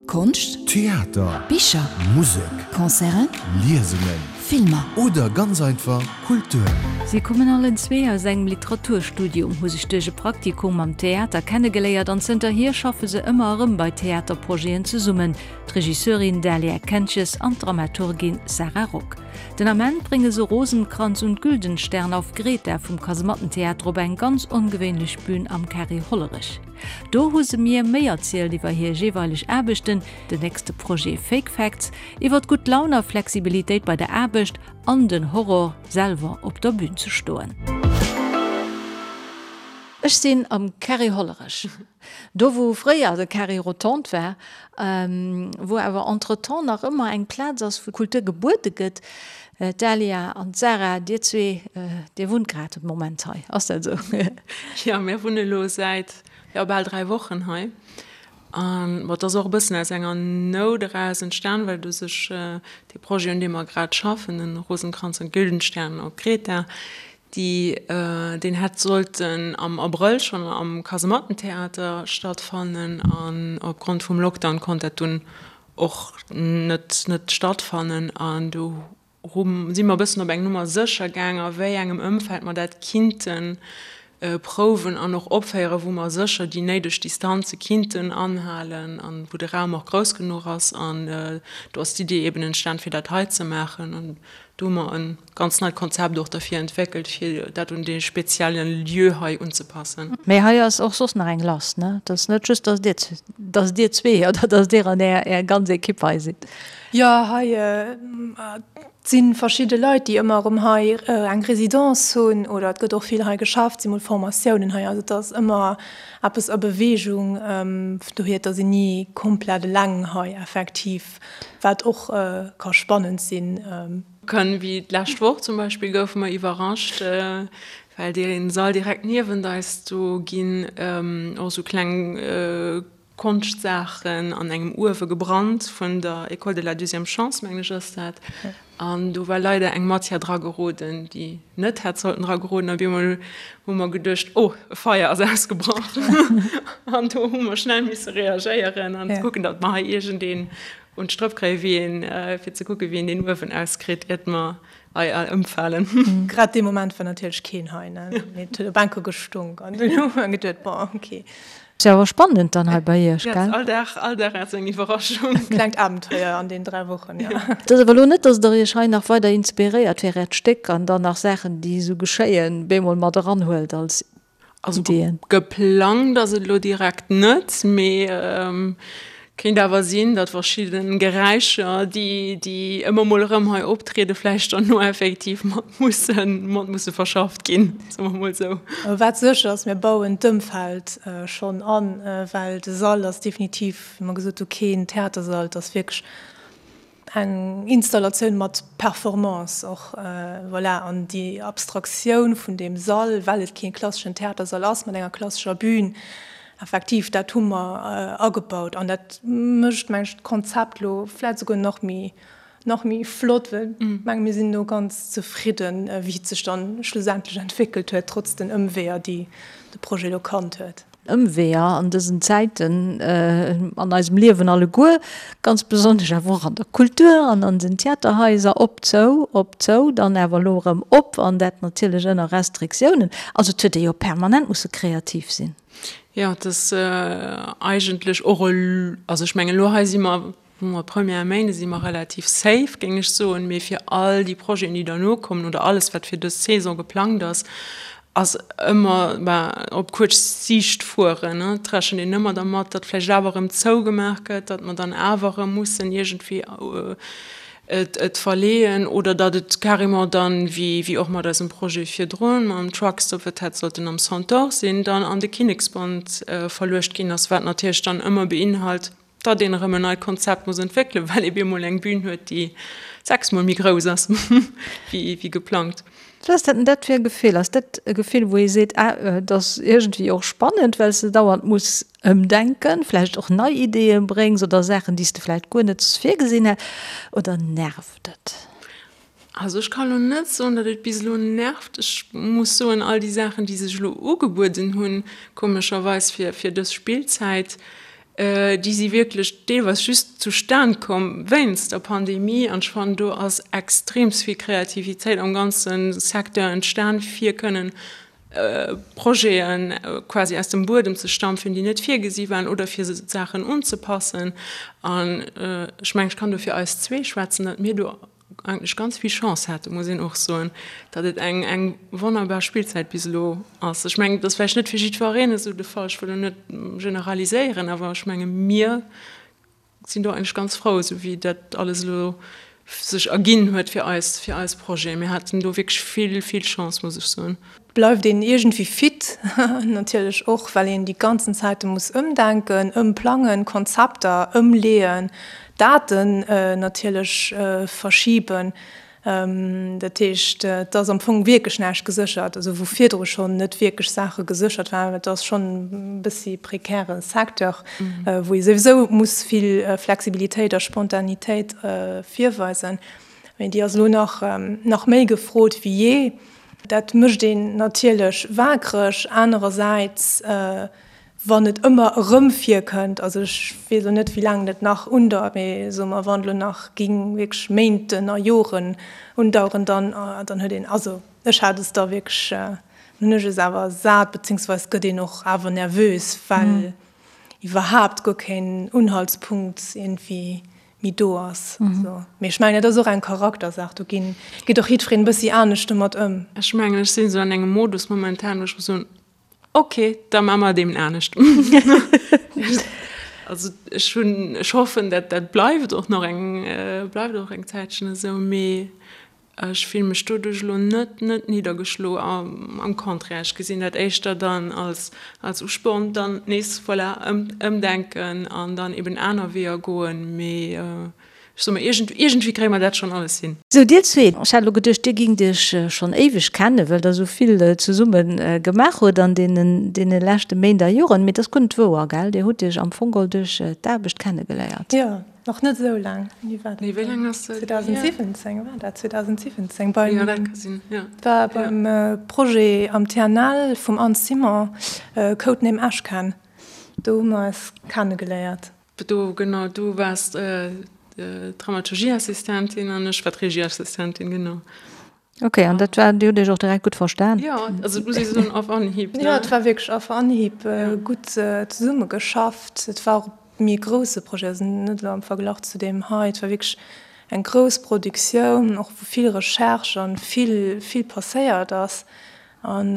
Konscht, Theater, Bicher, Musek, Concerten, Liesungen, Filmer. Oder ganz einfach Kultur. Si kommen allen zwee aus engem Literaturstudium, hu sech duerch e Praktikum am Theater kennegeléiert an zënterhier schaffe se ëmmer erëm bei Theaterprojeten zesummen, d'Regisseurin Dahlia Kentjes an d'Dramaturgin Sarah Rock. Den Ament brénge se Rosenkranz und Güldenstern auf Greta vum Kasemattentheater op eng ganz ongewéinlech Bün am Carré Hollerech. Do hu se mir méi erzielt iwwer hir jeeweileg Aarbechten, den nächste Projet Fake Facts, iwwer gutt Laun a Flexibilitéit bei der Aarbecht an den Horror, selwer op der Bün ze stoen. Ech sinn am Carré Hollerech, do wou fréier de Carré Rotonde war, wou awer entretemps nach ëmmer eng Plaz ass, wou Kultur gebuede gëtt. D'Dahlia an d'Sarah, dir zwee, dir wunnt grad de Moment hei, ass dat esou? Jo, mir wunne lo säit, jo, bal 3 Wochen hei. An bon, et ass och e bëssen aus enger Nout eraus entstan, well u sech dee Projet, un deem mer grad schaffen, den Rosenkranz und Güldenstern op Kreta, déi, deen hätt sollten am Abrëll schonn am Kasemattentheater stattfannen an opgrond vum Lockdown konnt dat dunn och net net stattfannen an do hu si mer e bëssen op eng Nummer sécher gaang a wéi engem Ëmfeld mer dat kinnte prouwen an och opféieren, wou mer sécher déi néideg Distanze kinnten anhalen an wou de Raum och grouss genuch ass an do ass d'Idee eben entstan fir dat hei ze maachen an do hu mer e ganz neit Konzept och derfir entwéckelt, fir dat un dee spezielle Lieu hei unzepassen. Mee hei ass och soss nach eng lass, ne? Et ass net just, dass dir, dass dir zwee oder dass dir an är, är ganz Ekipp hei sidd. Jo, hei si verschidde Leit, déi ëmmer erëm hei eng Résidence hunn oder et gëtt och vill hei geschafft, si mol Formatiounen hei. Also et ass ëmmer eppes a Beweegung, dohier et ass een ni komplett eleng hei effektiv, wat och ka spannend sinn. Kënn, wéi d'lescht Woch zum Beispill goufe mer iwwerrascht, well dee Sall direkt niewent eis, do ginn och esou kleng Konschtsaachen an engem Uewe gebrannt vun der École de la deuxième chance, mengen ech ass dat. An do war leider eng Matière dra geroden, déi net hätt sollten dra geroden. A op eemol hu mer geduecht, oh, e Feier ass ausgebrach. An do hu mer schnell misse reagéieren an kucken, datt mer hei iergendeen Un d'Strëpp kréien, wéi een, fir ze kucken, wéi een deen Uewen auskritt, iert mer hei all ëmfalen. Grad dee Moment war natierlech keen hei, ne? Mee et huet op enker gestunk an dunn hu mer geduet, bon, ok. Ass jo awer spannend dann hei bei iech, gell? Jo, all Dag, all Dag ass eng Iwwerraschung. Klengt Abenteuer an den 3 Wochen, jo. Et ass awer elo net, dass der iech hei nach weider inspiréiert fir äert Stéck an dann nach Saachen, déi esou geschéien, bemol mat eranhuelt als Also geplangt ass et elo direkt net, mee kéint awer sinn, datt verschidde Geräischer, déi déi ëmmer mol erëm hei optrieden, vläicht dann no effektiv mat mussen mat musse verschafft ginn, soe mer mol esou. Wat sécher ass, mir bauen d'Ëmfeld schonn an, well de Sall ass definitiv, wéi mer gesot hu, keen Theatersall, et ass wierklech Eng Installatioun mat Performance och, voilà. An déi Abstraktioun vun deem Sall, well et kee klasseschen Theatersall ass mat enger klassescher Bühn, effektiv, dat hu mer agebaut. An dat mécht, meng ech, d'Konzept elo vläicht esouguer nach méi, nach méi flott, well ech menge mir sinn elo ganz zefridden, wéi et sech dann schlussendlech entwéckelt huet, trotz den Ëmweeër, déi de Projet elo kannt huet. Ëmweeër an dësen Zäiten an eisem Liewen alleguer, ganz besonnesch awer och an der Kultur an an den Theaterhaiser, op, zou, op, zou, dann awer elo erëm op, an dat natierlech ënner Restriktiounen. Also et huet ee jo permanent musse kreativ sinn. Jo, et ass eigentlech och, also ech mengen elo hei si mer Wou mer Première Méinde si mer relativ safe, géing ech soen, mee fir all déi Projeten, déi derno kommen oder alles, wat fir dës Saison geplangt ass, ass ëmmer, ben, op kuerz Siicht fueren. Et rechent een ëmmer dermat, datt vläicht awer erëm zougemaach gëtt, datt mer dann awer erëm mussen iergendwéi et et verleeën oder datt et carrément dann, wéi wéi och mat eisem Projet virdrun, mam Truckstop, wat hätt sollten am Centaure sinn, dann an de Kinneksbond verluecht ginn ass, wat natierlech dann ëmmer beinhalt, datt een erëm en neit Konzept muss entwéckelen, well ee bemol eng Bühn huet, déi sechsmol méi grouss ass wéi geplangt. Wat ass dat denn dat fir e Gefill? Ass dat e Gefill, wou ee seet, ah, et ass iergendwéi och spannend, well s de dauernd muss ëmdenken, vläicht och nei Ideeë bréngs oder Saachen, déi s de vläicht guer net virgesinn hätt, oder nervt et? Also ech kann elo net soen, datt et bis elo nervt. Ech muss soen, all déi Saachen, déi sech elo ugebueden hunn, komescherweis fir, fir dës Spillzäit. Déi si wierklech deelweis just zustan komm wéinst der Pandemie. An ech fannen, do ass extreems vill Kreativitéit am ganze Secteur entstan, fir kënnen Projete quasi aus dem Buedem ze stampfen, déi net virgesi waren, oder fir Saachen unzepassen. An ech mengen, ech kann do fir eis zwee schwätzen, datt mir do eigentlech ganz vill Chance haten, muss een och soen, datt et eng eng wonnerbar Spillzäit bis elo ass. Ech mengen, et ass vläicht net fir jiddwereen esou de Fall, ech wëll elo net generaliséieren, awer ech menge mir sinn do eigentlech ganz frou, esou wéi dat alles elo sech erginn huet fir eis, fir eis Projeten. Mir haten do wierklech vill, vill Chance, muss ech soen. Bleift een iergendwéi fit, natierlech och well een déi ganzen Zäite muss ëmdenken, ëmplangen, Konzepter ëmleeën, Daten natierlech verschiben. Dat heescht, et ass am Fong wierklech näischt geséchert, also wou virdru schonn net wierklech Saache geséchert waren. Et ass schonn e bëssi prekäre Secteur, wou ee souwisou muss vill Flexibilitéit a Spontanitéit virweisen. Mee déi ass elo nach nach méi gefrot wéi jee. Dat mécht een natierlech waakreg. Anerersäits, wann et ëmmer erëm virkënnt, also ech weess elo net, wéi laang dat nach undauert, mee soe mer, wann et elo nach géing wierklech Méinten a Joren undaueren, dann, dann huet een, also ech hat es da wierklech, dann hunn ech es awer sat, beziehungsweise gëtt een och awer nervös, well iwwerhaapt guer keen Unhaltspunkt iergendwéi méi do ass. Also, mee ech mengen, dat ass och eng Charaktersaach, do ginn, geet och jiddwereen e bëssi anescht domat ëm. Ech mengen, ech sinn esou an engem Modus momentan, wou ech muss soen, ok, da maache mer et eben anescht. Also ech hunn, ech hoffen, dat dat bleift och nach eng, bleift och eng Zäitchen esou, mee Ech fille mech doduerch elo net net niddergeschlo, am Contraire, ech gesinn dat éischter dann als als Usporn, dann nees, voilà, ëmdenken an dann eben aner Weeër goen. Mee ech soe mer, iergend iergendwéi kréie mer dat schonn alles hin. Sou, dir zwee, ech hat elo geduecht, dir gingt iech schonn éiweg kennen, well der esou vill zesumme gemaach hutt an deenen deene leschte Méint a Joren. Mee et ass guer net wouer, gell? Dir hutt iech am Fong geholl duerch d'Aarbecht kennegeléiert. Jo, Nach net esou laang. Wéini war dat? Nee, wéi laang ass dat hier? 2017 war dat, 2017 beim, Jo, dat ka sinn, jo. War beim Projet am TNL vum Anne Simon, Codename Ashcan. Do hu mer eis kennegeléiert. Do, genau, du waars d'Dramaturgieassistentin an ech war d'Regieassistentin, genau. Ok, an dat war, Dir hutt Iech och direkt gutt verstan? Jo, also et muss ee soen, auf Anhieb, ne? Jo, et war wierklech auf Anhieb gutt zesummegeschafft. Et war och e méi grousse Projet, also net elo am Verglach zu deem hei. Et war wierklech eng grouss Produktioun, och wou vill Recherche an vill, vill passéiert ass an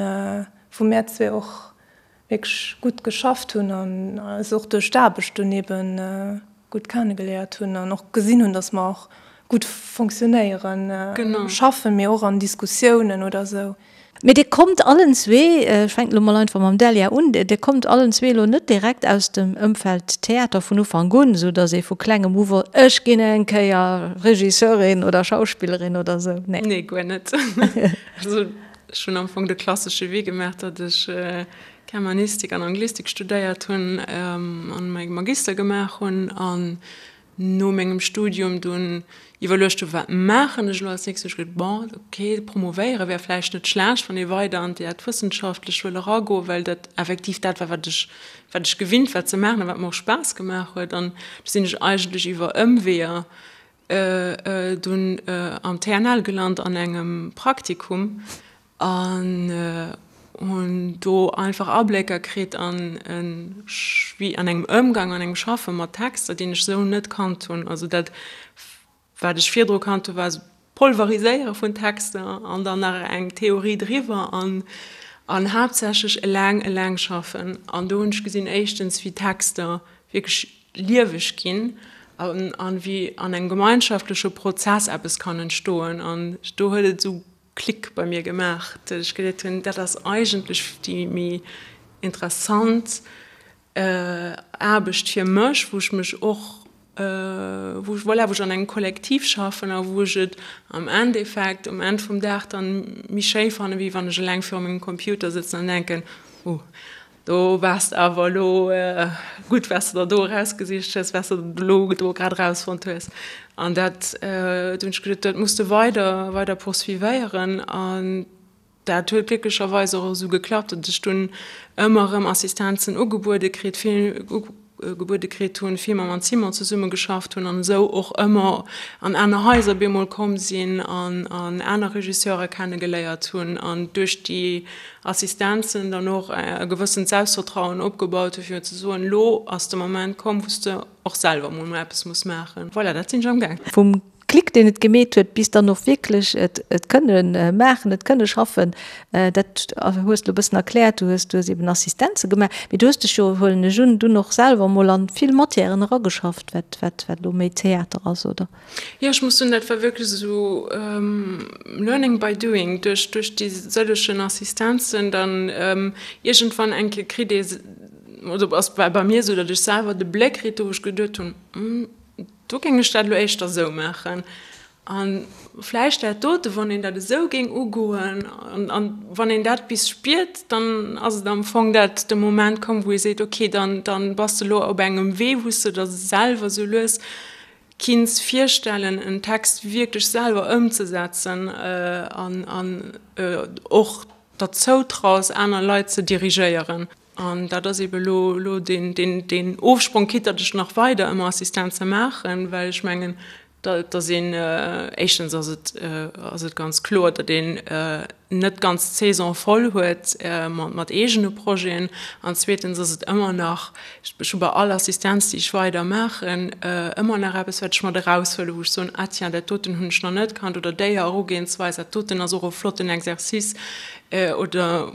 wou mär zwee och wierklech gutt geschafft hunn an eis och duerch d'Aarbecht dunn eben gutt kennegeléiert hunn an och gesinn hunn, datt mer och gutt fonctionnéieren, schaffen, mee och an Diskussiounen oder esou. Mee Dir kommt allen zwee, ech fänken elo mol einfach mam Delia un, Dir kommt allen zwee elo net direkt aus dem Ëmfeld Theater vun Ufank un, esou datt ee vu klengem u wosst, ech ginn eng Kéier Regisseurin oder Schauspillerin oder esou, nee? Nee, guer net. Also Ech hunn am Fong de klassesche Wee gemaach, datt ech Germanistik an Anglistik studéiert hunn an mäi Magister gemaach hunn an no mengem Studium dunn iwwerluecht hunn, wat maachen ech elo als nächstes? Hu ech geduecht, bon, okay, promovéiere wär vläicht net schlecht, wann ee weider an d'Wëssenschaftlech wëll eragoen, well dat effektiv dat war, wat ech, wat ech gewinnt war ze maachen a wat mer och Spaass gemaach huet. An du sinn ech eigentlech iwwer Ëmweeër Dunn am TNL gelant an engem Praktikum an hunn do einfach Ablécker kritt an wéi an engem Ëmgang, an engem Schaffe mat Texter, deen ech esou net kannt hunn. Also dat wat ech virdru kannt hu war esou Polveriséiere vun Texter an dann nach eng Theorie driwwer an an haaptsächlech eleng eleng schaffen. An do hunn ech gesinn éischtens wéi Texter wierklech lieweg ginn an wéi an engem gemeinschaftleche Prozess eppes kann entstoen. An do huet et esou Klick bei mir gemaach, datt ech geduet hunn, dat ass eigentlech déi méi interessant Aarbecht fir mech, wou ech mech och, wou ech, voilà, wou ech an engem Kollektiv schaffen a wou ech et am Endeffekt um Enn vum Dag dann méi schéi fannen, wéi wann ech eleng viru mengem Computer sëtzen an denken, oh, Do waars de awer elo gutt, wat s de der do erausgesicht hues, wat s de elo do grad erausfonnt hues. An dat, do hunn ech geduet, dat muss de weider, weider poursuivéieren. An dat huet glécklecherweis och esou geklappt, datt ech dunn ëmmer erëm Assistenzen ugebuede kritt, vill. gebuede kritt hunn, vill mam Anne Simon zesumme geschafft hunn an esou och ëmmer an aner Haiser bemol komm sinn an aner Regisseure kenne geléiert hunn an duerch déi Assistenzen dann och e gewëssent Selbstvertrauen opgebaut hunn, fir ze soen, elo ass de Moment komm, wou s de och selwer emol eppes muss maachen. Voilà, dat sinn ech amgaang. Vum Klick, deen et gemeet huet, bis dann och wierklech et et kënne maachen, et kënne schaffen, dat hues de elo e bëssen erkläert. Du hues, du hues eben Assistenze gemaach, mee du hues dech jo, huelen ech un, dunn och selwer emol an vill Matièren erageschafft, wat, wat, wat elo méi Theater ass, oder? Jo, ech muss soen, dat war wierklech esou learning by doing, duerch, duerch déi sëllegen Assistenzen dann iergendwann eng Kéier kritt ee, oder ass war bei mir esou, datt ech selwer de Bléck kritt hu wou ech geduet hunn, Do géing ech dat elo éischter esou maachen. A vläicht dat dote, wann een dat esou géing ugoen an wann een dat bis spiert, dann ass et am Fong dat de Moment komm, wou ee seet, okay, dann, dann bass de elo op engem Wee, wou s de der selwer esou lues kinns virstellen, en Text wierklech selwer ëmzesetzen an an och der zoutraus, aner Leit ze dirigéieren. An dat ass eebe elo elo deen, deen, deen Ofsprong, quitte datt ech nach weider ëmmer Assistenze maachen, well ech mengen, datt een, éischtens ass et, ass et ganz kloer, datt een net ganz d'Saison voll huet mat eegene Projeten. An zweetens ass et ëmmer nach, ech hu bei all Assistenz, déi ech weider maachen, ëmmer nach eppes, wat ech mat eraushuelen, wou ech soen, ah tiens, dat doten hunn ech nach net kannt oder déi Erugehensweis, dat doten ass och e flotten Exercice. Oder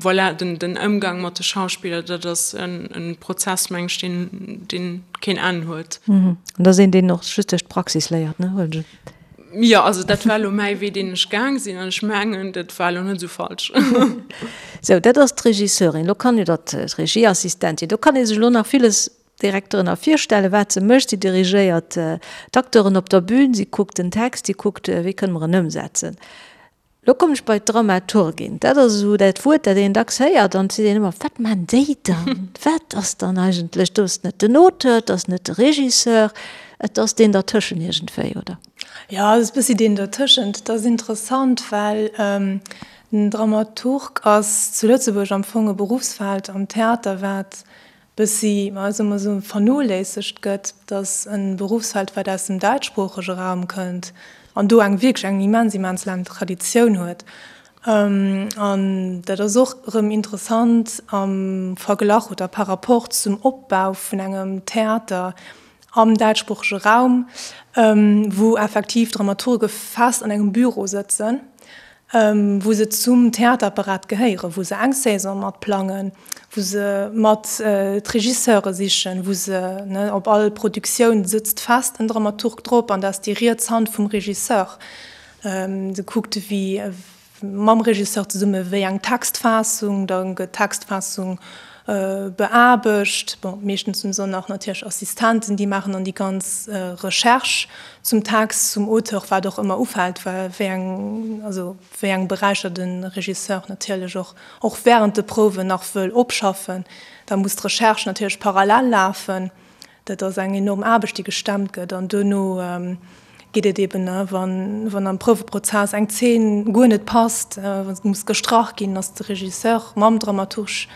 voilà, den, den Ëmgang mat de Schauspiller, dat ass en, en Prozess, meng ech, deen, deen keen Enn huet. An dat ass een, deen och just duerch d'Praxis léiert, ne, huelen ech un? Jo, also dat war elo mäi Wee, deen ech gaang sinn, an ech mengen, dat war elo net esou falsch. Sou, dat ass d'Regisseurin. Elo kann, oder d'Regieassistentin, do kann ee sech elo nach villes direkt drënner virstellen, wat se mécht. Si dirigéiert d'Acteuren op der Bühn, si kuckt den Text, si kuckt, wéi kënne mer en ëmsetzen. Lo kommen ech bei d'Dramaturgin. Dat ass esou dat Wuert, dat een dacks héiert an et seet een ëmmer, Wat maan déi dann? Wat ass dann eigentlech? Do ass net den Auteur, et ass net de Regisseur, et ass deen dertëschen iergendwéi, oder? Jo, et ass e bëssi deen dertëschent. Et ass interessant, well den Dramaturg ass zu Lëtzebuerg am Fong e Beruffsfeld am Theater, wat bëssi, ma soe mer esou, vernoléissegt gëtt, dass e Beruffsfeld, wat aus dem däitschsproochege Raum kënnt an do eng wierklech eng immens, immens laang Traditioun huet. An dat ass och erëm interessant am Verglach oder par rapport zum Opbau vun engem Theater am däitschsproochege Raum, wou effektiv Dramaturge fest an engem Büro sëtzen, wou se zum Theaterapparat gehéieren, wou se eng Saison mat plangen, wou se mat d'Regisseure sichen, wou se, ne, op all Produktioun sëtzt fest en Dramaturg drop an dat ass déi riets Hand vum Regisseur. Se kuckt, wéi mam Regisseur zesumme wéi eng Textfaassung, da gëtt d'Textfaassung beaarbecht. Bon, meeschtens hunn se dann nach natierlech Assistenten, déi maachen dann déi ganz Recherche zum Text, zum Auteur, wat och ëmmer ufält, wéi eng, also wéi eng Beräicher de Regisseur natierlech och, och während de Prouwen nach wëll opschaffen. Da muss d'Recherche natierlech parallel lafen. Dat ass eng enorm Aarbecht, déi gestemmt gëtt. An duerno geet et eben, wann am Prouweprozess eng Zeen guer net passt, wa se muss gestrach ginn, ass de Regisseur mam Dramaturg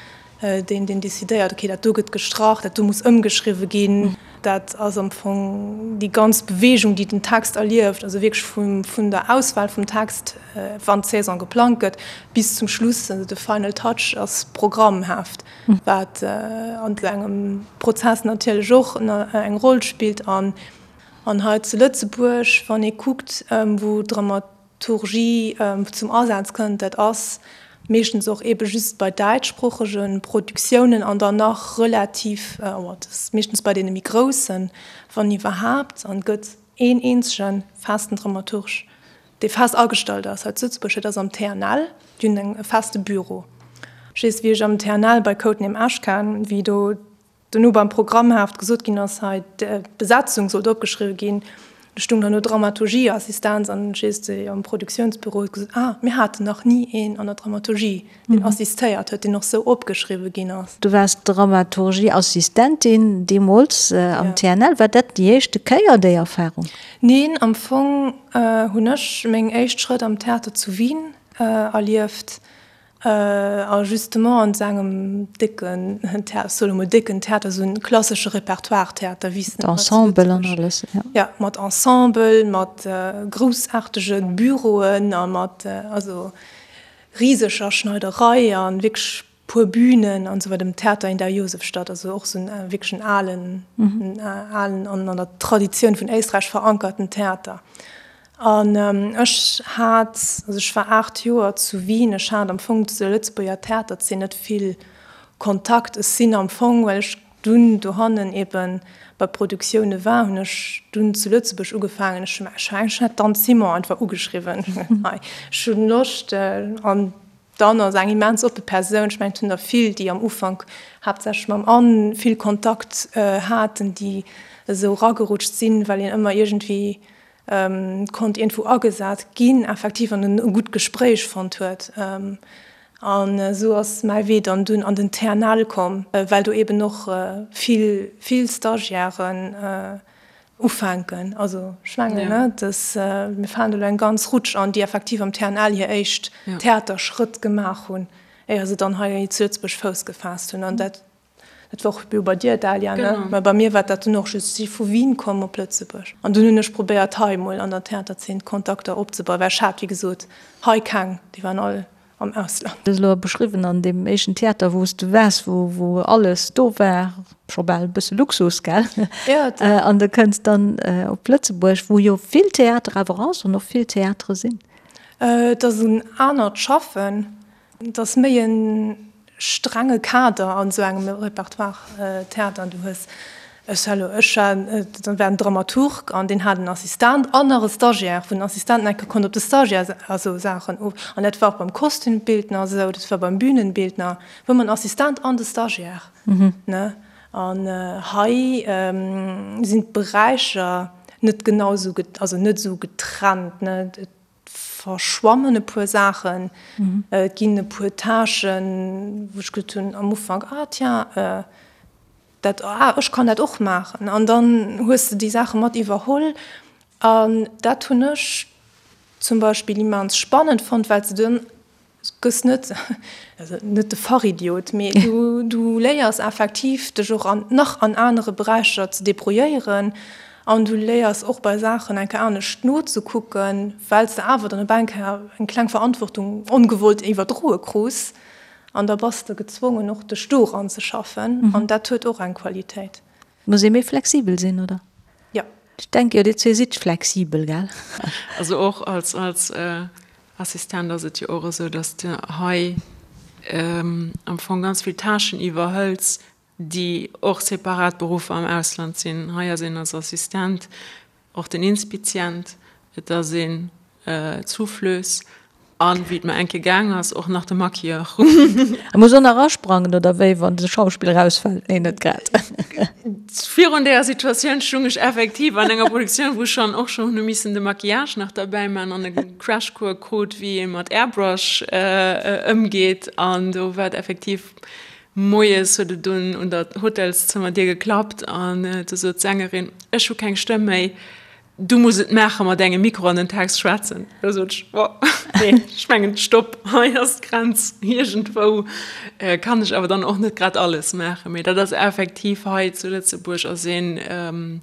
deen, deen decidéiert, okay, dat do gëtt gestrach, dat do muss ëmgeschriwwe ginn. Dat ass am Fong déi ganz Beweegung, déi den Text erlieft, also wierklech vun der Auswahl vum Text, wann d'Saison geplangt gëtt, bis zum Schluss, also de Final Touch ass Programmheft. Wat an esou engem Prozess natierlech och eng Roll spillt. An hei zu Lëtzebuerg, wann ee kuckt, wou d'Dramaturgie zum Asaz kënnt, dat ass meeschtens och eebe just bei däitschsproochege Produktiounen an dann nach relativ, dat ass meeschtens bei deene méi groussen, wann iwwerhaapt. An et gëtt een eenzege festen Dramaturg dee fest agestallt ass hei zu Lëtzebuerg, dat ass am TNL, déi hunn eng e feste Büro. Ech weess, wéi ech am TNL bei Codename Ashcan, wéi do dono beim Programmheft gesot ginn ass, hei d'Besetzung sollt opgeschriwwe ginn, do stung dann do Dramaturgieassistenz an ech weess, déi am Produktiounsbüro huet gesot, ah, mir haten nach ni een an der Dramaturgie, deen assistéiert huet, deen och sou opgeschriwwe ginn ass. Du waars Dramaturgieassistentin deemools am TNL. War dat déi éischte Kéier, déi Erfarung? Neen, am Fong hunn ech meng éischt Schrëtt am Theater zu Wien erlieft. A justement an esou engem décken Theater, ech soe lo mol décken Theater, esou en klassesche Repertoire-Theater, wéi s de Mat Ensemble an alles, jo. Jo, mat Ensemble, mat groussaartege Büroen a mat, also riseger Schneiderei a wierklech puer Bühnen an esou weider, dem Theater in der Josefstadt, also och esou en wierklech en alen, en alen an an der Traditioun vun Éisträich verankerten Theater. An ech hat, also ech war 8 Joer zu Wien, ech hat am Fong zu der Lëtzebuerger Theaterzeen net vill Kontakt. Ech sinn am Fong, well ech dunn dohannen ebe bei Produktioune war, hunn ech dunn zu Lëtzebuerg ugefaangen. Ech hunn ech hat d'Anne Simon einfach ugeschriwwen, hei, ech hunn Loscht. An d'Anne ass eng immens oppe Persoun. Ech mengen, et hunn der vill, déi am Ufank haaptsächlech mam Anne vill Kontakt haten, déi esou eragerutscht sinn, well een ëmmer iergendwéi konnt iergendwou agesat ginn, effektiv, an en e gutt Gespréich fonnt huet. An esou ass mäi Wee dann dunn an den TNL komm, well do eben och vill, vill Stagiairen ufänken. Also ech mengen, ne, dass mir falen do elo eng ganz Rutsch an, déi effektiv am TNL hir éischt Theaterschrëtt gemaach hunn, éier se dann hei zu Lëtzebuerg Fouss gefaasst hunn. An dat Dat war och jo bei dir, Dalia, ne? Mä bei mir war dat dunn och just, ech si vu Wien komm op Lëtzebuerg an dunn hunn ech probéiert hei emol an der Theaterzeen Kontakter opzebauen, well ech hat, wéi gesot, hei keng, déi waren all am Ausland. Du hues elo beschriwwen an deem éischten Theater, wou s du waars, wou wou alles do war, scho bal e bësse Luxus, gell? Jo. An du kënns dann op Lëtzebuerg, wou jo vill Theater awer ass an och vill Theatere sinn. Et ass en anert Schaffen. Et ass méi e strenge Kader an esou engem Repertoire-Theater. Du hues, ech elo, ech war, da war en Dramaturg an deen hat en Assistent an nach e Stagiaire, wou den Assistent eng Kéier konnt op de Stagiaire also Saachen of. An dat war och beim Kostümbildner esou, dat war beim Bühnenbildner, wou mer en Assistent an de Stagiaire, ne. An hei sinn d'Beräicher net genau esou, also net esou getrennt, ne. verschwammen e puer Saachen, et ginn e puer Tâchen, wou ech gesot hunn am Ufank, ah tiens, dat, ah ech kann dat och maachen. An dann hues de déi Saache mat iwwerholl. An dat hunn ech zum Beispill immens spannend fonnt, well s de dann gëss net, also net de Fachidiot, mee du, du léiers effektiv dech och an nach an anere Beräicher ze debrouilléieren an du léiers och bei Saachen eng Kéier anescht nozekucken, well s de awer dann op eng Kéier eng kleng Verantwortung ongewollt iwwerdroe krus an da bass de gezwongen och dech do eranzeschaffen an dat huet och eng Qualitéit. Muss ee méi flexibel sinn, oder? Jo. Ech denke jo, dir zwee sidd flexibel, gell? Also och als, als Assistent ass et jo och esou, dass de hei am Fong ganz vill Tâchen iwwerhëls, déi och separat Beruffer am Ausland sinn. Hei ass een als Assistent och den Inspizient, et ass een d'Souffleuse an, wéi et mer eng Kéier gaang ass, och nach de Maquilleur. E muss och nach asprangen, oder wéi, wann de Schauspiller ausfält? Nee, net grad. Virun deeër Situatioun stung ech effektiv an enger Produktioun, wou ech schonn och schonn hu missen de Maquillage nach derbäi man an e Crashcours krut, wéi ee mat Airbrush ëmgeet. An do war et effektiv, moies huet et dunn un der Hotelszëmmerdier geklappt an du sot d'Sängerin, Ech hu keng Stëmm méi, du muss et maache mat engem Mikro an den Text schwätzen. Da sot ech, Oh, nee, ech mengen, stopp, hei ass d'Grenz, iergendwou kann ech awer dann och net grad alles maachen. Mee dat ass effektiv hei zu Lëtzebuerg ass een,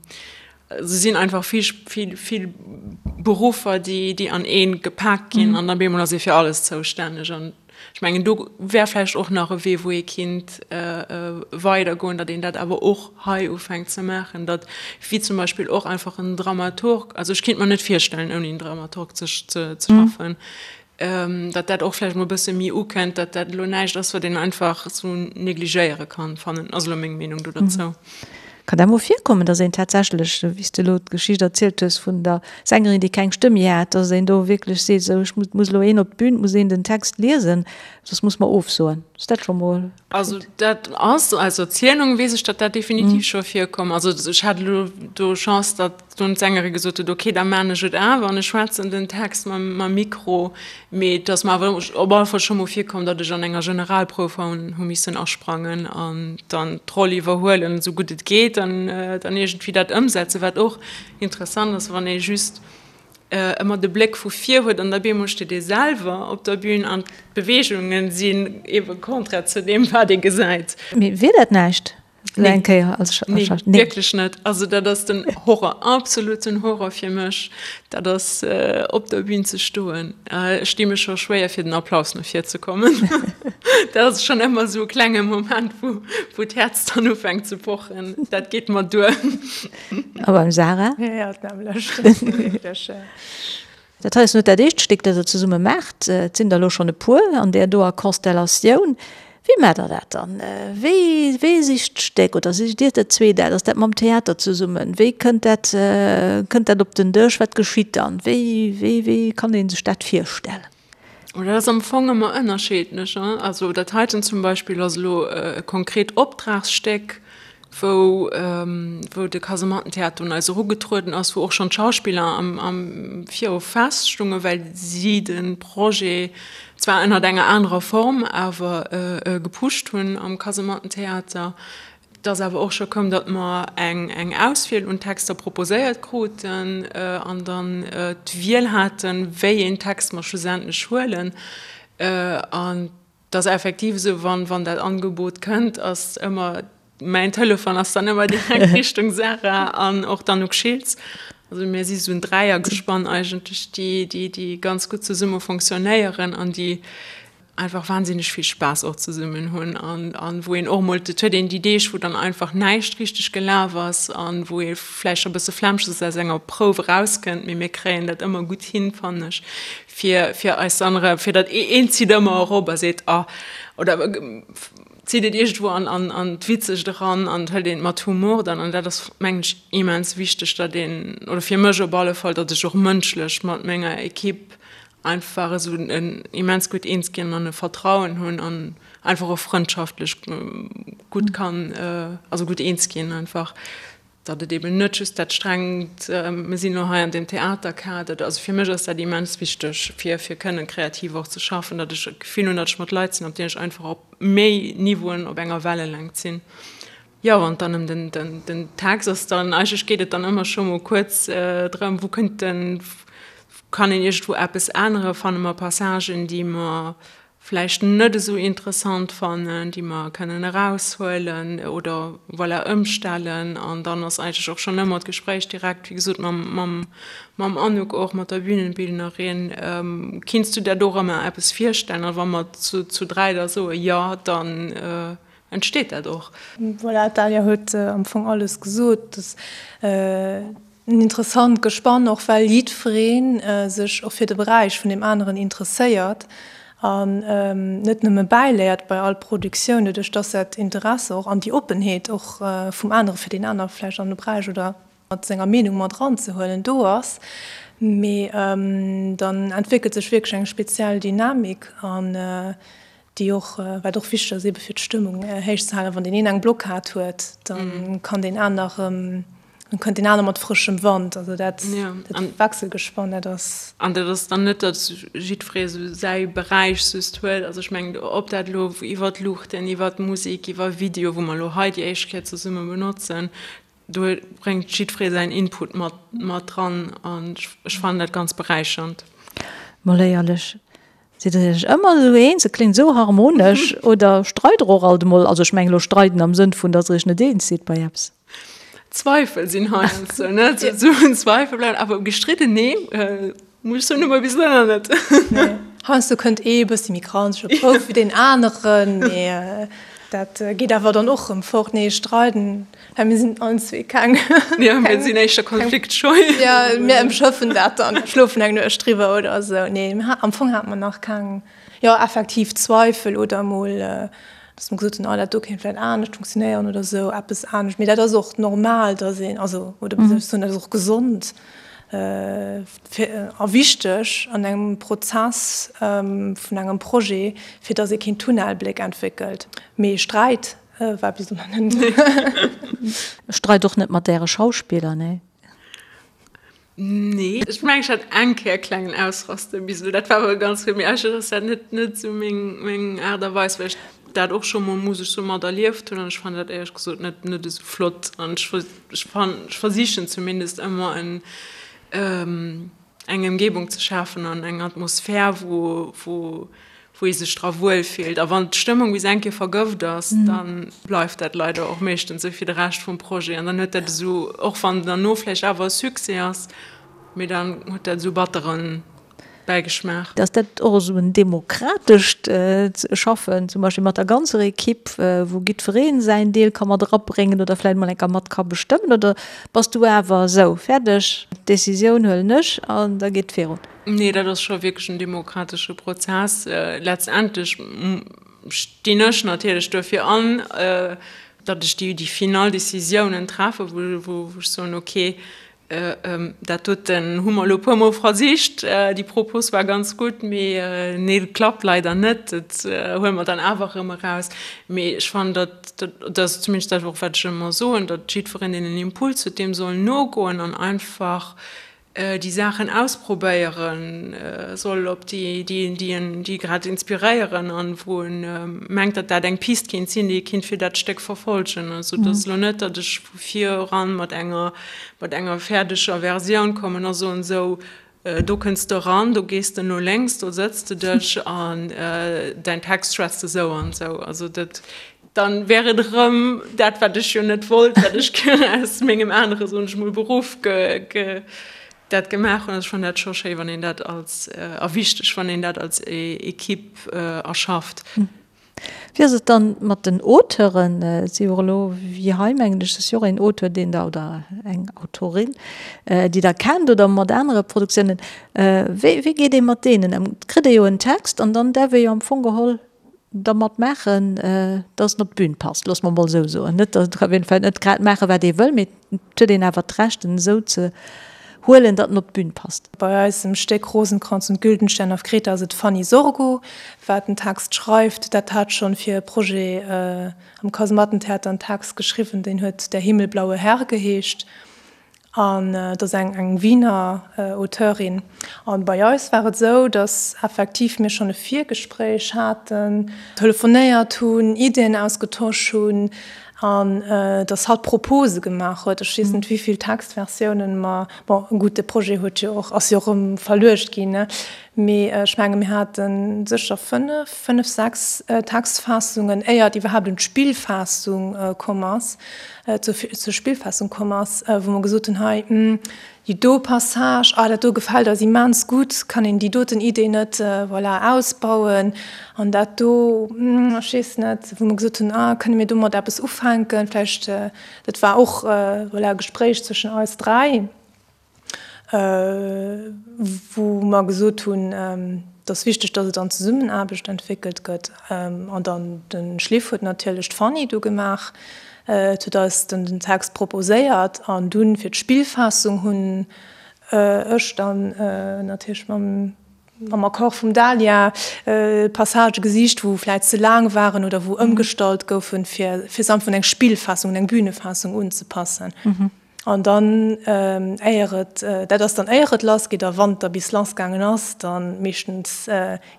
Se sinn einfach vill, vill, vill Beruffer, déi, déi an ee gepak ginn an da bemol ass ee fir alles zoustänneg. An ech mengen, do wär vläicht och nach e Wee, wou ee kinnt weidergoen, datt een dat awer och hei ufänkt ze maachen, datt wéi zum Beispill och einfach en Dramaturg, also ech kinnt mer net virstellen, ouni en Dramaturg ze, ze schaffen, datt dat och vläicht mol e bësse méi ukënnt, datt dat elo näischt ass, wat een einfach esou negligéiere kann, fannen, ass elo meng Meenung do derzou. Kann dat mol virkommen, datt een tatsächlech, wéi s de elo d'Geschicht erzielt hues vun der Sängerin, déi keng Stëmm méi hat, datt een do wierklech seet, esou ech muss elo een op d'Bün, et muss een den Text liesen, soss muss mer ofsoen? Ass dat scho mol geschitt? Also dat ass, aus Erzielung weess ech, datt dat definitiv scho virkomm. Also ech hat elo do Chance, datt Dunn d'Sängerin gesot huet, ok, da maan ech et awer an ech schwätzen den Text mam Mikro. Mee et ass mer awer op alle Fall scho mol virkomm, datt ech an enger Generalprouf hu missen asprangen an dann d'Roll iwwerhuelen, esou gutt et geet, an dann iergendwéi dat ëmsetzen. Wat och interessant ass, wann ee just. Ëmmer de Bléck vu vir huet an da bemol steet ee selwer op der Bühn an d'Beweegungen sinn eebe konträr zu deem, wat ee gesäit. Mee wier dat näischt esou eng Kéier als Schauspiller? Nee, wierklech net. Also dat ass den Horror, absoluten Horror fir mech, dat ass op der Bühn ze stoen. Ech di mech scho schwéier fir den Applaus no vir ze kommen. Dat ass schonn ëmmer esou e klenge Moment, wou wou d'Häerz dann ufänkt ze pochen. Dat geet mer duer. A beim Sarah? Ja, d'nämmlecht. Dat ass wierklech. Dat hei ass net dat éischt Stéck, dat Der zesumme maacht. Et sinn der elo schonn e puer an där doer Konstellatioun. Wéi maacht Der dat dann? Wéi, wee sicht d'Stéck oder sicht Dir dat zwee dat? Ass dat mam Theater zesummen? Wéi kënnt dat, kënnt dat op den Dësch? Wat geschitt dann? Wéi, wéi, wéi kann ee sech dat virstellen? Oh, dat ass am Fong ëmmer ënnerscheedlech. Also dat heiten zum Beispill ass elo e konkret Optragsstéck, wou wou de Kasemattentheater un eis erugetrueden ass, wou och schonn d'Schauspiller am am Viru feststungen, well si de Projet zwar ënnert enger anerer Form awer gepusht hunn am Kasemattentheater. Et ass awer och scho koum, datt mer eng eng Auswiel un Texter proposéiert kruten an dann d'Wiel haten, wéi een Text mer schlussendlech huelen. An et ass effektiv esou, wann wann dat Angebot kënnt, ass ëmmer, mäin Telefon ass dann ëmmer direkt Richtung Sarah an och d'Anouk Schiltz. Also mir si sou en Dräiergespann eigentlech, déi déi déi ganz gutt zesumme fonctionnéieren an déi einfach wahnsinneg vill Spaass och zesummen hunn an an wou een och mol, et huet een déi Deeg wou dann einfach näischt richteg gelaf ass an wou ee vläicht scho bësse flämmeg ass aus enger Prouf erauskënnt, mee mir kréien dat ëmmer gutt hin, fannen ech, fir fir eis dann erëm, fir datt een zitt ëmmer erop a seet ah oder zitt et iergendwou an an an d'Witzegt eran an hëlt een et mat Humor dann an dat ass mengen ech immens wichteg, datt een, oder fir mech op alle Fall, datt ech och mënschlech mat menger Equipe einfach esou en immens gutt eens ginn an e Vertrauen hunn an einfach och frëndschaftlech gutt kann, also gutt eens ginn einfach, datt et eben net just dat strengt, mir sinn elo hei an deem Theaterkader, also fir mech ass dat immens wichteg fir fir kënnen kreativ och ze schaffen, datt ech d'Gefill hunn, datt ech mat Leit sinn, op deenen ech einfach op méi Niveauen op enger Wellelängt sinn. Jo, wann et dann ëm den, den, den Text ass, dann eigentlech geet et dann ëmmer scho mol kuerz drëm, wou kënnt den, kann een iergendwou eppes änneren, fanne mer Passagen, déi mer vläicht net esou interessant fannen, déi mer kënnen eraushuelen oder voilà ëmstellen. An dann ass eigentlech och schonn ëmmer d'Gespréich direkt, wéi gesot, mam, mam, mam Anouk och, mat der Bühnenbildnerin, Kinns du der dorëmmer eppes virstellen? A wa mer zu, zu 3 da soe jo, dann entsteet dat och. Voilà, d'Dalia huet am Fong alles gesot. Et ass en interessant Gespann, och well jiddweree sech och fir de Beräich vun deem aneren interesséiert an net nëmme bäiléiert bei all Produktioun, doduerch dass dat Interesse och an déi Oppenheet och vum anere fir deen aner vläicht an de Beräich oder mat senger Meenung mat eranzehuelen do ass. Mee dann entwéckelt sech wierklech eng speziell Dynamik an déi och, wat och wichteg ass ebe fir d'Stëmmung héich ze halen, wann deen een eng Blockad huet, da kann deen aner erëm, dann kënnt deen aner mat frëschem Wand. Also dat, dat Wechselgespann, dat ass. An dat ass dann net, datt jiddweree esou säi Beräich just huet. Also ech mengen, ob dat elo iwwer d'Luuchten, iwwer d'Musek, iwwer Video, wou mer elo hei déi éischt Kéier zesumme benotzen, Do bréngt jiddweree säin Input mat mat dran an ech fannen dat ganz beräichernd. Mol éierlech, sidd der iech ëmmer esou eens? Et kléngt esou harmonesch. Oder streit der och alt emol? Also ech mengen elo streiden am Sënn vun, datt der iech net eens sidd bei eppes. Zweifel sinn heiansdo, ne? Esou en Zweifel bleiwen, awer gestridden, nee. Muss ech soen, hu mer bis elo nach net. Nee, heiansdo kënnt ee e bëssi méi granzeg op d'Prouf wéi deen aneren, mee dat geet awer dann och rëm fort. Nee, streiden, well mir sinn allen zwee keng. Jo, mir sinn éischter konfliktscheu. Jo, mir ëmschëffen dat dann, schlofen eng Nuecht driwwer oder esou. Nee, am Fong hate mer nach keng, jo, effektiv Zweifel oder emol, dass mer gesot hunn, oh, dat do kéint vläicht anescht funktionéieren oder esou, eppes anescht. Mee dat ass och normal, dass een, also, oder wéi soll ech soen, dat ass och gesond. A wichteg an engem Prozess vun engem Projet, fir datt ee keen Tunnelbléck entwéckelt. Mee Sträit war bis elo nach net. Streit och net mat Äre Schauspiller, nee? Nee, ech mengen ech hat eng Kéier e klengen Ausraster bis elo, dat war awer ganz gutt, mee eigentlech ass dat net net esou meng meng Aart a Weis, well ech dat och scho mol, muss ech soen, mat erlieft hunn an ech fannen dat éierlech gesot net net esou flott an ech Ech versichen zumindest ëmmer en. Eng Ëmgebung ze schafen an eng Atmosphär, wou, wou, wou ee sech dra wuel fillt. A wann d'Stëmmung bis eng Kéier vergëft ass, da bleift dat leider och meeschtens esou fir de Rescht vum Projet. An dann huet dat esou, och wann derno vläicht awer e Succès ass, mee dann huet dat esou batteren Bäigeschmaach. Ass dat och esou en demokratescht Schaffen, zum Beispill mat der ganzer Ekipp, wou giddweree säin Deel ka mat erabréngen oder vläicht mol eng Kéier mat ka bestëmmen? Oder bass du awer esou, fäerdeg, d'Decisioun huelen ech an da geet et virun? Nee, dat ass scho wierklech en demokratesche Prozess. Letztendlech stinn ech natierlech duerfir an, datt ech déi final Decisiounen treffe, wou ech soen, okay, Dat doten hu mer elo e puer Mol versicht. Déi Propos war ganz gutt, mee nee, et klappt leider net. Dat huele mer dann awer erëm eraus. Mee ech fannen, datt, dat ass zumindest dat och, wat ech ëmmer soen, datt jiddwereen, deen en Impuls huet, deem soll nogoen an einfach déi Saachen ausprobéiere soll, op déi, déi en, déi grad inspiréieren an wou en mengt, datt dat eng Pist kéint sinn, déi e kéint fir dat Stéck verfolgen. Also et ass elo net, datt ech vu vir eran mat enger, mat enger fäerdeger Versioun kommen a soen, esou, do kënns de eran, do gees de no lénks, do sëtz de dech an däin Text schwätzt esou an esou. Also dat, dann wär et erëm dat, wat ech jo net wollt, wat ech aus mengem anere, soen ech mol, Beruff ge, ge, dat gemaach hunn. Also ech fannen dat scho schéi, wann een dat als, a wichteg, wann een dat als Equipe erschafft. Wéi ass et dann mat den Auteuren? Et si jo och elo, wéi hei mengen ech, ass jo och een Auteur, deen der, oder eng Autorin, déi Der kennt oder mat anere Produktiounen. Wéi, wéi geet ee mat deenen ëm? Et kritt ee jo en Text an dann däerf ee jo am Fong geholl dermat maachen, dass en op d'Bün passt, loosse mer emol esou soen. Net, et däerf een vläicht net grad maachen, wat ee wëll, mee Et huet een awer d'Recht, en esou ze huelen, datt en op d'Bün passt. Bei eisem Stéck Rosenkranz und Güldenstern auf Kreta ass et d'Fanny Sorgo, wat den Text schreift. Dat hat schonn fir e Projet am Kasemattentheater en Text geschriwwen, deen huet Der himmelblaue Herr geheescht. An et ass eng eng Wiener Auteurin. An bei eis war et esou, datt effektiv mir schonn e Virgespréich haten, telefonéiert hunn, Iddien ausgetosch hunn, An dass hatt Propose gemaach huet. Ech weess net, wéi vill Textversiounen mer, bon, gutt, de Projet huet jo och, ass jo och erëm verluecht ginn, ne, mee ech menge mir hate sécher fënnef, fënnef, sechs Textfaassungen, éier et iwwerhaapt un d'Spillfaassung komm ass, zur, zur Spillfaassung komm ass, wou mer gesot hunn, hei, Déi do Passage, ah dat do gefält eis immens gutt, kann een déi doten Idee net, voilà, ausbauen? An dat do, ech weess net, wou mer gesot hunn, ah kënne mir domat eppes ufänken vläicht? Dat war och, voilà, e Gespréich zwëschen eis 3, wou mer gesot hunn, et ass wichteg, datt et an Zesummenaarbecht entwéckelt gëtt. An dann de Schliff huet natierlech d'Fanny du gemaach. Et huet eis dann den Text proposéiert an dunn fir d'Spillfaassung hunn ech dann natierlech mam mam Accord vum Dalia Passagë gesicht, wou vläit ze laang waren oder wou ëmgestallt goufen, fir fir se einfach un eng Spillfaassung, un eng Bühnefaassung unzepassen. An dann, éier et, dat ass dann éier et lass geet, a wann et da bis lass gaangen ass, da meeschtens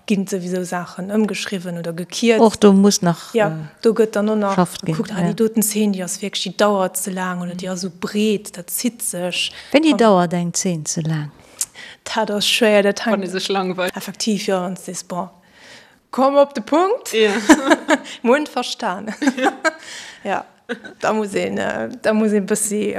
ginn souwisou Saachen ëmgeschriwwen oder gekierzt. Och do muss nach Jo, do gëtt dann och nach gekuckt, ah déi doten Zeen, déi ass wierklech, déi dauert ze laang oder déi ass esou breet, dat zitt sech. Wéini dauert eng Zeen ze laang? Dat ass schwéier, dat hänkt. Wann ee sech langweilt. Effektiv, jo, wann s de sees, bon, komm op de Punkt, mir hunn verstanen. Jo. Da muss een, da muss een bëssi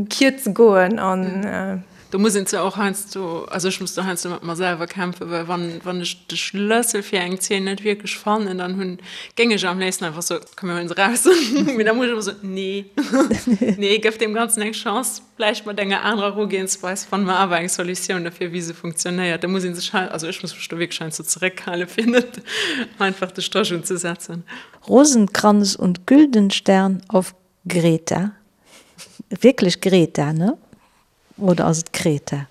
kierze goen an. Do muss een zwar och heiansdo, also ech muss do heiansdo mat mer selwer kämpfen, well wann, wann ech de Schlëssel fir eng Zeen net wierklech fannen, dann hunn, géing ech am léifsten einfach soen, komm mir huelen se raus. Mee da muss ech ëmmer soen, nee, nee, gëff deem Ganzen eng Chance, vläicht mat enger anerer Erugehensweis fanne mer awer eng Solutioun dofir, wéi se funktionéiert. Da muss ee sech hei, also ech muss mech do wierklech heiansdo zeréckhalen, fir net einfach de Stréch unzesetzen. Rosenkranz und Güldenstern auf Greta. Wierklech Greta, ne? Oder ass et Kreta?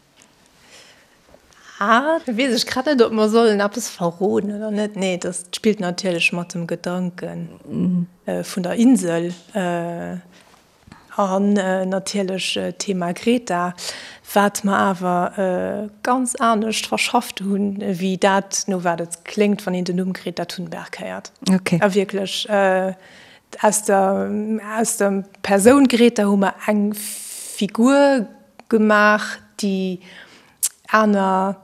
Ah, do weess ech grad net, ob mer sollen eppes verroden oder net. Nee, dat spillt natierlech mat dem Gedanke vun der Insel. An natierlech d'Thema Greta, wat mer awer ganz anescht verschafft hunn, wéi dat, no wat et kléngt, wann een den Numm Greta Thunberg héiert. A wierklech, aus der, aus der Persoun Greta hu mer eng Figur gemaach, déi. Aner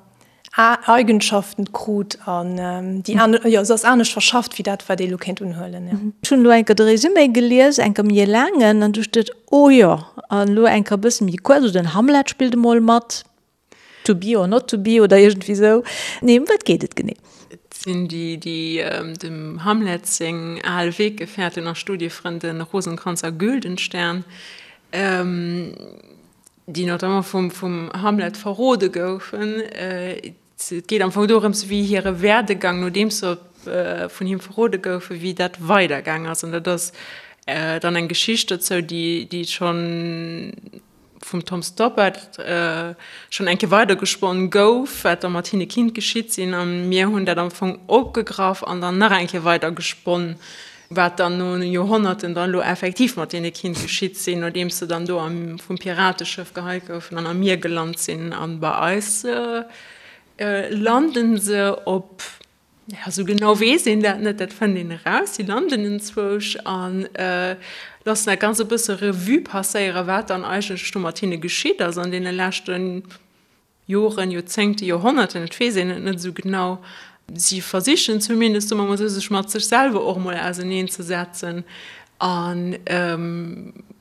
Eigenschaften krut an déi aner, jo, se ass anescht verschafft wéi dat, wat ee elo kéint unhuelen, jo. Ech hunn elo eng Kéier de Résumé gelies, eng Kéier méi e laangen, an du steet, oh jo, an elo eng Kéier e bësse méi kuerz, also den Hamlet spillt emol mat, to be or not to be oder iergendwéi esou. Nee, ëm wat geet et genee? Et sinn déi, déi dem Hamlet seng al Weggefährten a Studiefrënde Rosenkranz a Güldenstern, déi notamment vum vum Hamlet verrode goufen. Et geet am Fong dorëms, wéi hire Werdegang, nodeems se vun him verrode goufen, wéi dat weidergaang ass. An dat ass dann eng Geschicht dozou, déi déi schonn vum Tom Stoppard schonn eng Kéier weidergesponnen gouf, wat da mat hinne kinnt geschitt sinn. A mir hunn dat am Fong opgegraff an dann nach eng Kéier weidergesponnen. Wat dann no Joerhonnerten dann elo effektiv mat deene kinnt geschitt sinn, nodeems se dann do am vum Pirateschëff geheit goufen an am Mier gelant sinn. An bei eis landen se op, ja sou genau weess een dat net, dat fënnt een eraus, si landen enzwousch a loossen dat Ganzt e bësse Revue passéieren, wat dann eigentlech do mat hinne geschitt ass an deene leschten Joren, Joerzéngte, Joerhonnerten, et weess een et net esou genau. Si versichen zumindest, soe mer mol esou, sech mat sech selwer och emol auseneen ze setzen an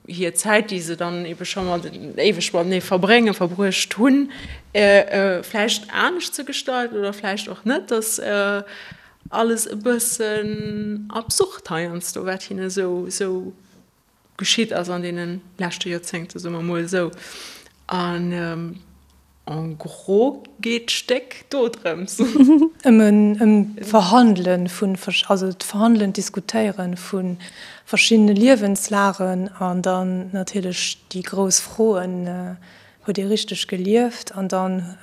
hir Zäit, déi se dann ebe scho mat éiweg matenee verbréngen, verbruecht hunn, vläicht anescht ze gestalten oder vläicht och net. Dass alles e bëssen absurd heiansdo, wat hinne esou geschitt ass an deene leschte Joerzéngte, soe mer emol esou. An en gros geet d'Stéck do drëms. Ëm d'Verhandele vun, also d'Verhandelen, d'Diskutéiere vu verschiddene Liewenslagen an dann natierlech déi grouss Froen, Huet ee richteg gelieft? An dann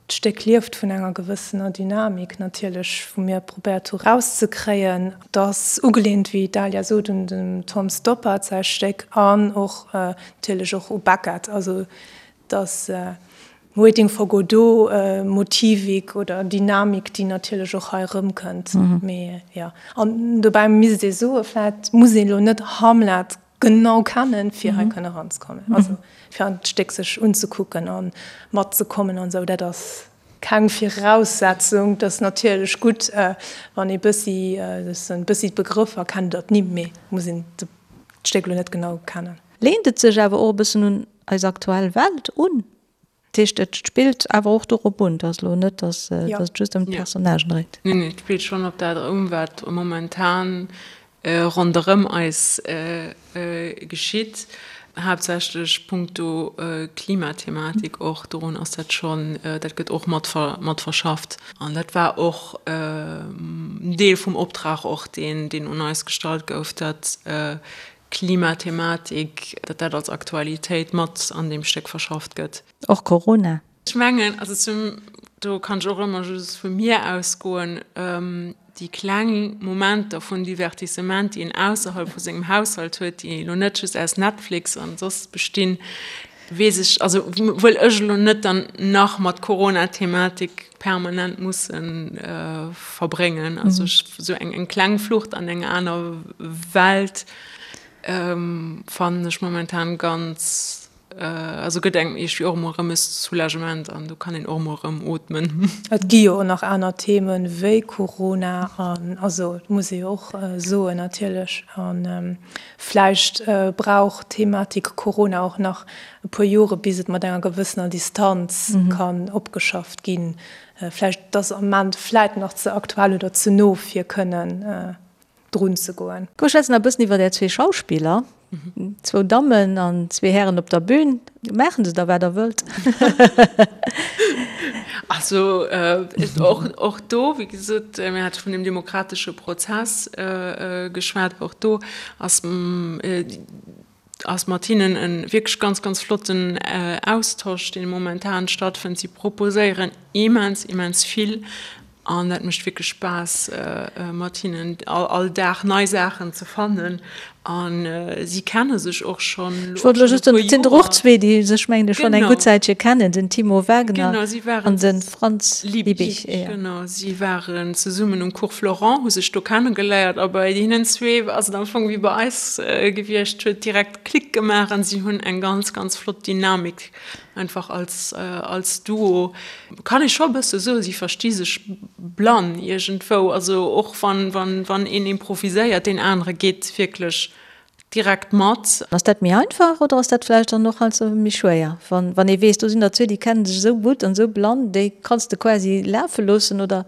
D'Stéck lieft vun enger gewëssener Dynamik natierlech, wou mir probéiert hu rauszekréien. Et ass ugeleent, wéi d'Dalia sot, un dem Tom Stoppard säi Stéck an och natierlech och u Beckett. Also et ass Waiting for Godot Motivik oder Dynamik, déi natierlech och hei erëmkënnt. Mee jo, an dobäi misst ee soe vläicht muss ee lo net Hamlet genau kennen, fir hei kënne eranzekommen. Also fir an d'Stéck sech unzekucken a matzekommen an esou, dat ass keng Viraussetzung. Et ass natierlech gutt, wann ee bëssi, e bëssi d'Begrëffer kennt oder d'Nimm, mee muss een d'Stéck elo net genau kennen. Leent et sech awer och e bëssen un eis aktuell Welt un? Dat heescht, et spillt awer och dorop un, et ass elo net, datt et just ëm d'Personnagen dréit. Neen, et spillt schonn op dat un, wat momentan ronderëm eis geschitt, haaptsächlech punkto Klimathematik och. Dorun ass dat schonn, dat gëtt och mat mat verschafft. An dat war och en Deel vum Optrag och, deen un eis gestallt gouf, datt Klimathematik, datt dat als Aktualitéit mat an deem Stéck verschafft gëtt. Och Corona. Ech mengen, also zum, do kann ech och ëmmer just vu mir ausgoen, déi kleng Momenter vun Divertissement, déi een ausserhalb vu sengem Haushalt huet, déi elo net just aus Netflix an soss bestinn, weess ech, also wëll ech elo net dann nach mat Corona-Thematik permanent musse verbréngen. Also ech, esou eng eng kleng Flucht an eng aner Welt fannen ech momentan ganz, also gëtt engem iergendwéi och emol erëm e Soulagement an do kann een och emol erëm ootmen. Et gi jo och nach aner Themen wéi Corona an, also et muss ee jo och soen natierlech an Vläicht brauch d'Thematik Corona och nach e puer Jore bis et mat enger gewëssener Distanz kann opgeschafft ginn. Vläicht ass am Ament vläit nach ze aktuell oder ze no fir kënnen drun ze goen. Komm mir schwätzen nach e bëssen iwwer är zwee Schauspiller. Zwou Dammen an zwee Hären op der Bühn. Maachen se da wat der wëllt? Also och do, wéi gesot, mir hate vun dem demokratesche Prozess geschwat, och do ass ass mat hinnen e wierklech ganz, ganz flotten Austosch, deen momentan stattfënnt. Si proposéieren immens, immens vill an dat mécht wierklech Spaass, mat hinnen all Dag nei Saachen ze fannen. A si kenne sech och schonn elo Ech wollt elo just soen, et sinn der och zwee, déi sech, mengen ech, schonn eng gutt Zäitche kennen, den Timo Wagner an de Franz Liebig. Genau, si waren zesummen um Cours Florent, hu sech do kennegeléiert a bei hinnen zwee ass et am Fong wéi bei eis gewiescht, huet direkt Klick gemaach an si hunn eng ganz, ganz flott Dynamik einfach als, als Duo. Kann ee scho e bësse soen, si versti sech blann iergendwou. Also och wann, wann, wann een improviséiert, deen anere geet wierklech direkt mat. Ass dat méi einfach oder ass dat vläicht dann och heiansdo méi schwéier, wann, wann ee weess, do sinn der zwee, déi kennen sech esou gutt an esou blann, déi kanns de quasi lafe loossen oder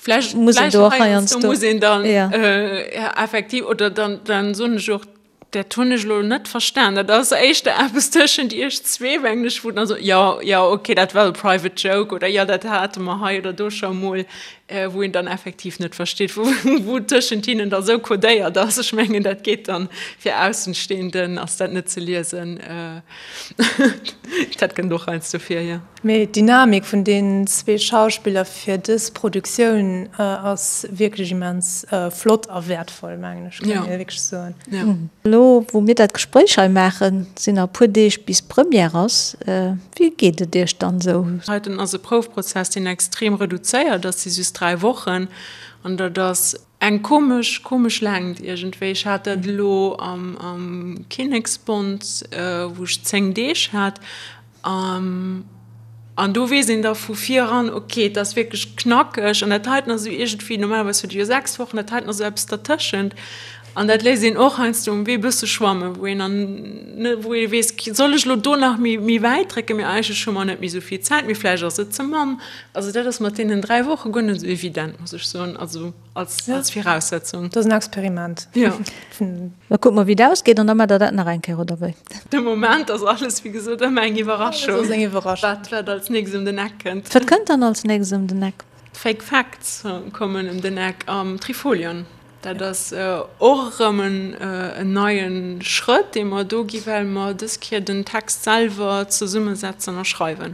Vläicht, muss een do och heiansdo muss een dann effektiv oder dann, dann soen ech och, Dat hunn ech elo net verstan. Dat ass éischter eppes tëschent iech zwee, mengen ech, wou dann esou, jo, jo, okay, dat war e private joke oder jo, dat hate mer hei oder do scho emol, wou een dann effektiv net versteet, wou, wou tëschent hinnen da sou codéiert ass. Ech mengen, dat geet dann, fir Aussenstehenden ass dat net ze liesen. Dat kënnt och heiansdo vir, jo. Mee d'Dynamik vun deenen zwee Schauspiller fir dës Produktioun ass wierklech immens flott a wäertvoll, mengen ech, kann ee wierklech soen. Elo wou mir dat Gespréich hei maachen, sinn nach e puer Deeg bis d'Première ass. Wéi geet et Iech dann esou? Heiten ass e Proufprozess, deen extrem reduzéiert ass, si just 3 Wochen, an dat ass Eng komesch, komesch Längt iergendwéi. Ech hat dat elo am Kinneksbond, wou ech 10 Deeg hat. An do weess een da vu vir eran, ok, et ass wierklech knackeg. An dat heiten ass esou iergendwéi, normalerweis huet ee jo 6 Wochen, dat heiten ass esou eppes dertëschent. An dat léisst een och heiansdo um Wee e bësse schwammen, wou een dann, wou ee weess, soll ech elo do nach méi, méi wäit drécken, mee eigentlech hu mer net méi esou vill Zäit, mee vläicht ass et ze mann. Also dat ass mat deenen 3 Woche guer net esou evident, muss ech soen, also als, als Viraussetzung. Dat ass en Experiment. Jo. Da kucke mer, wéi et ausgeet an da maacht Der dat nach eng Kéier, oder wéi? De Moment ass alles, wéi gesot, ëmmer eng Iwwerraschung. Alles ass eng Iwwerraschung. Wat, wat als nächst ëm den Eck kënnt. Wat kënnt dann als nächst ëm den Eck? D'Fake Facts kommen ëm den Eck am Trifolion. Dat ass och erëm en neie Schrëtt, dee mer do gi well mer dës Kéier den Text selwer zesummesetzen a schreiwen.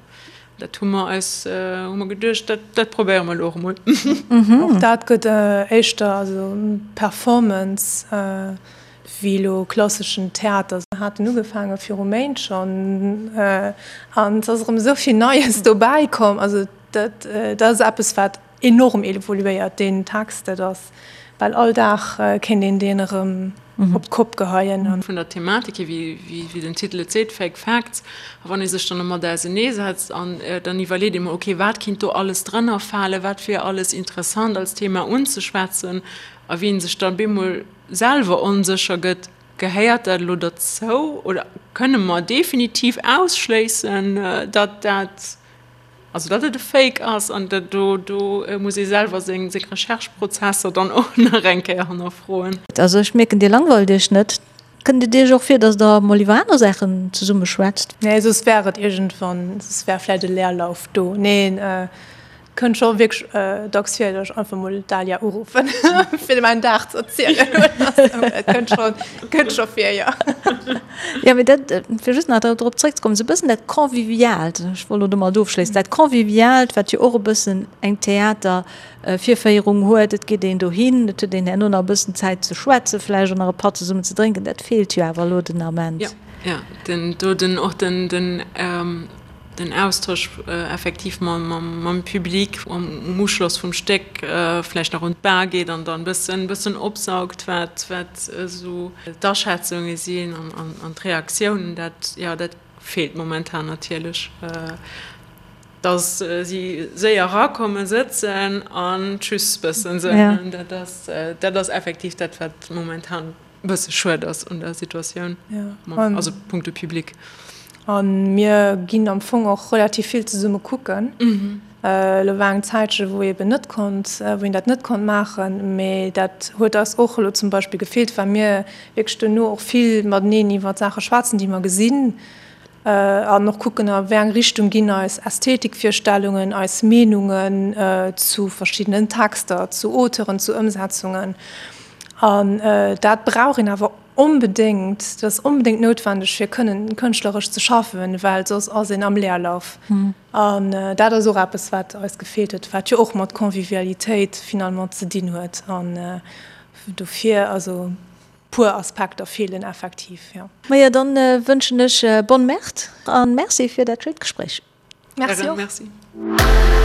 Dat hu mer eis, hu mer geduecht, dat, dat probéiere mer elo och emol. Och dat gëtt éischter also Performance wéi elo klasseschen Theater. Mer haten ugefaange viru Méint schonn an et ass erëm esou vill Neies dobäi komm. Also dat, dat ass eppes, wat Enorm evoluéiert deen Text, dat ass bal all Dag kéint een deen erëm op d'Kopp geheien. Vun der Thematik hier, wéi den Titel et seet, Fake Facts, a wann ee sech dann domat auseneesetzt an dann iwwerleet ee mol, okay, wat kinnt do alles drënner falen, wat wier alles interessant als Thema unzeschwätzen, a wéi ee sech dann bemol selwer onsécher gëtt, Gehéiert dat elo derzou oder kënne mer definitiv ausschléissen, datt dat Also datt et e Fake ass an dat do do muss ee selwer seng seng Recherche-Prozesser dann och nach eng Kéier hannerfroen. Also ech mierken, Dir langweilt Iech net. Kënnt et Iech och vir, datt Der mol iwwer aner Saachen zesumme schwätzt? Nee, soss wär et iergendwann, soss wär vläicht e Leerlauf do. Neen, Kënnt scho wierklech dacks vir, datt ech einfach mol d'Dalia uruffen, fir mäin Dag ze erzielen oder sou. Et kënnt scho, kënnt scho vir, jo. Jo, mee dat, fir just nach drop zréckzekommen, esou e bëssen dat Conviviaalt, ech wollt elo domat ofschléissen, dat Conviviaalt, wat jo och e bëssen eng Theatervirféierung huet, et geet een dohin, et huet een herno nach e bëssen Zäit ze schwätzen, vläicht och nach e Patt zesummen ze drénken, dat feelt jo awer elo den Ament. Jo, jo, den, do den, och den, den. Den Austosch effektiv mam Public um Uschloss vum Stéck, vläicht nach un d'Bar geet an dann e bëssen opsaugt, wat esou d'Aschätzunge sinn an d'Reaktiounen, dat, jo, dat feelt momentan natierlech. Dass si séier erakommen, sëtzen an tschüss bëssen soen, dat ass effektiv dat, wat momentan Bësse schued ass un der Situatioun, also punkto Public. A mir ginn am Fong och relativ vill zesumme kucken. Elo war eng Zäitche wou eben net konnt, wou een dat net konnt maachen, mee dat huet eis och elo zum Beispill gefeelt, well mir wierklech duerno och vill mateneen iwwer Saache schwätzen, déi mer gesinn an och kucken, a wéi eng Richtung ginn eis Ästhetikvirstellungen, eis Meenungen zu verschiddenen Texter, zu Auteuren, zu Ëmsetzungen. An dat brauch een awer onbedéngt, dat ass onbedéngt noutwendeg, fir kënnen kënschtleresch ze schaffen, well soss ass een am Leerlauf. An dat ass och eppes, wat eis gefeelt huet, wat jo och mat Convivialitéit finalement ze dinn huet. An dofir, also. Puer Aspekter feelen effektiv, jo. Majo, dann wënschen ech bonne Merde an Merci fir dat schéint Gespréich. Merci och. Merci.